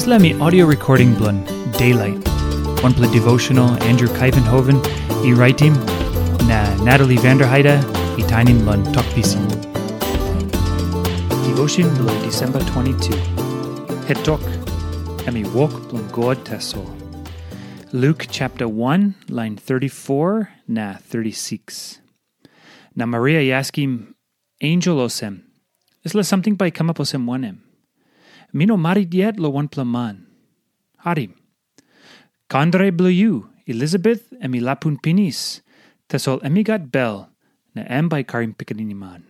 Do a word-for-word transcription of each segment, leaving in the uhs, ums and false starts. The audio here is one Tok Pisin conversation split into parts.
Dispela mi audio recording bilong Daylight, wanpela devotional Andrew Kaivenhoven i raitim, na Natalie Vanderheide i tainim long Tok Pisin. Devotion bilong Disemba twenty-two. Het tok, em i wok bilong God tasol. Luke chapter one, line thirty-four na thirty-six. Na Maria i askim ensel olsem, "Dispela samting bai i kamap olsem wanem? Mi no marit yet long wanpela man. Harim. Kandre bilong yu, Elisabet, em i lapun pinis, tasol em i gat bel, na em bai i karim pikinini man."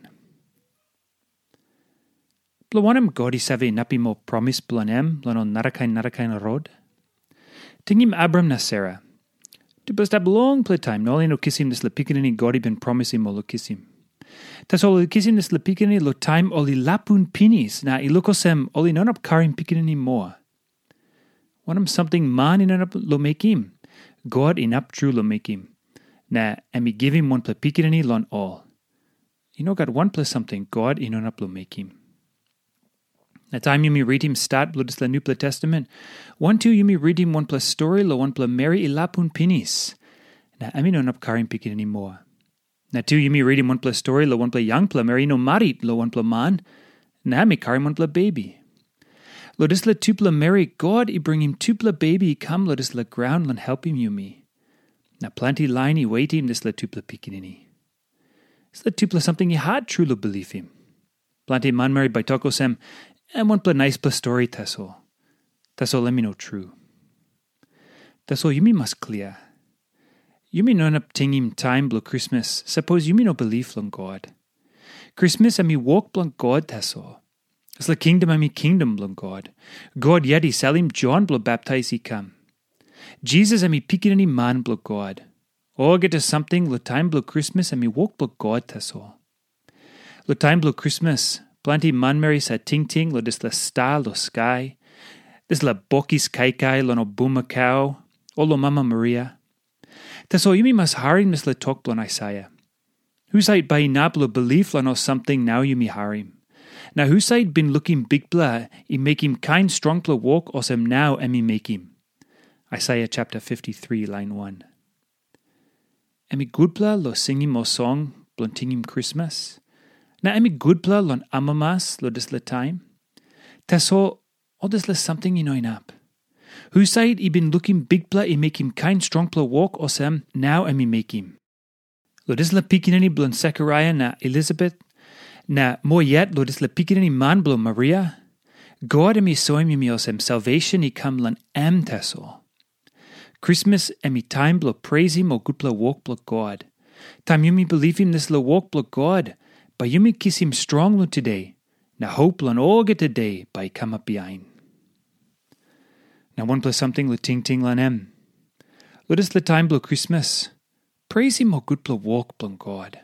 Bilong wanem God i save inapim ol promis bilong em long ol narakain narakain rot? Tingim Abram na Sera. Tupela stap longpela taim na ol i no kisim dispela pikinini God i bin promisim ol long kisim. Tasol ol i kisim dispela pikinini long taim ol i lapun pinis, na i luk olsem ol i no inap karim pikinini moa. Wanem samting man i no inap long mekim, God inap tru long mekim, na em i givim wanpela pikinini long ol. I no gat wanpela samting God i no inap long mekim. Na taim yumi ritim stat bilong dispela Nupela Testamen, wantu yumi ritim wanpela stori long wanpela meri i lapun pinis, na em i no inap karim pikinini moa. Na tu yumi ritim wanpela stori long wanpela yangpela meri i no marit long wanpela man, na em i karim wanpela bebi. Long dispela tupela meri, God i bringim tupela bebi i kam long dispela graun long helpim yumi. Na planti lain i wetim dispela tupela pikinini. Dispela tupela samting i hat tru long bilipim. Planti manmeri bai tok olsem, "Em wanpela naispela stori tasol." Tasol em i no tru. Tasol yumi mas klia. Yumi no inap tingim taim bilong Krismas, sapos yumi no bilip long God. Krismas em i wok bilong God tasol. Dispela kingdom em i kingdom bilong God. God yet i salim Jon bilong baptais i kam. Jisas em i pikinini man bilong God. Olgeta samting long taim bilong Krismas em i wok bilong God tasol. Long taim bilong Krismas, planti manmeri sa tingting long dispela sta long skai, dispela bokis kaikai long ol bumakau, o long Mama Maria. Tasol yumi mas harim dispela tok bilong Aisaia. Husat bai inap long bilip long ol samting nau yumi harim? Na husat bin lukim Bikpela i mekim kain strongpela wok olsem nau em i mekim? Aisaia chapter fifty-three, line one. Em i gutpela long singim ol song bilong tingim Krismas, na em i gutpela long amamas long dispela taim. Tasol ol dispela samting i no inap. Husat i bin lukim Bikpela i mekim kain strongpela wok olsem nau em i mekim? Long dispela pikinini bilong Sekaraia na Elisabet, na moa yet long dispela pikinini man bilong Maria, God em i soim yumi olsem salvation i kam long em tasol. Krismas em i taim bilong preisim ol gutpela wok bilong God. Taim yumi bilipim dispela wok bilong God, bai yumi kisim strong long today, na hop long olgeta de bai i kamap bihain. Na wanpela samting long tingting long em. Long dispela taim bilong Krismas, preisim ol gutpela wok bilong God.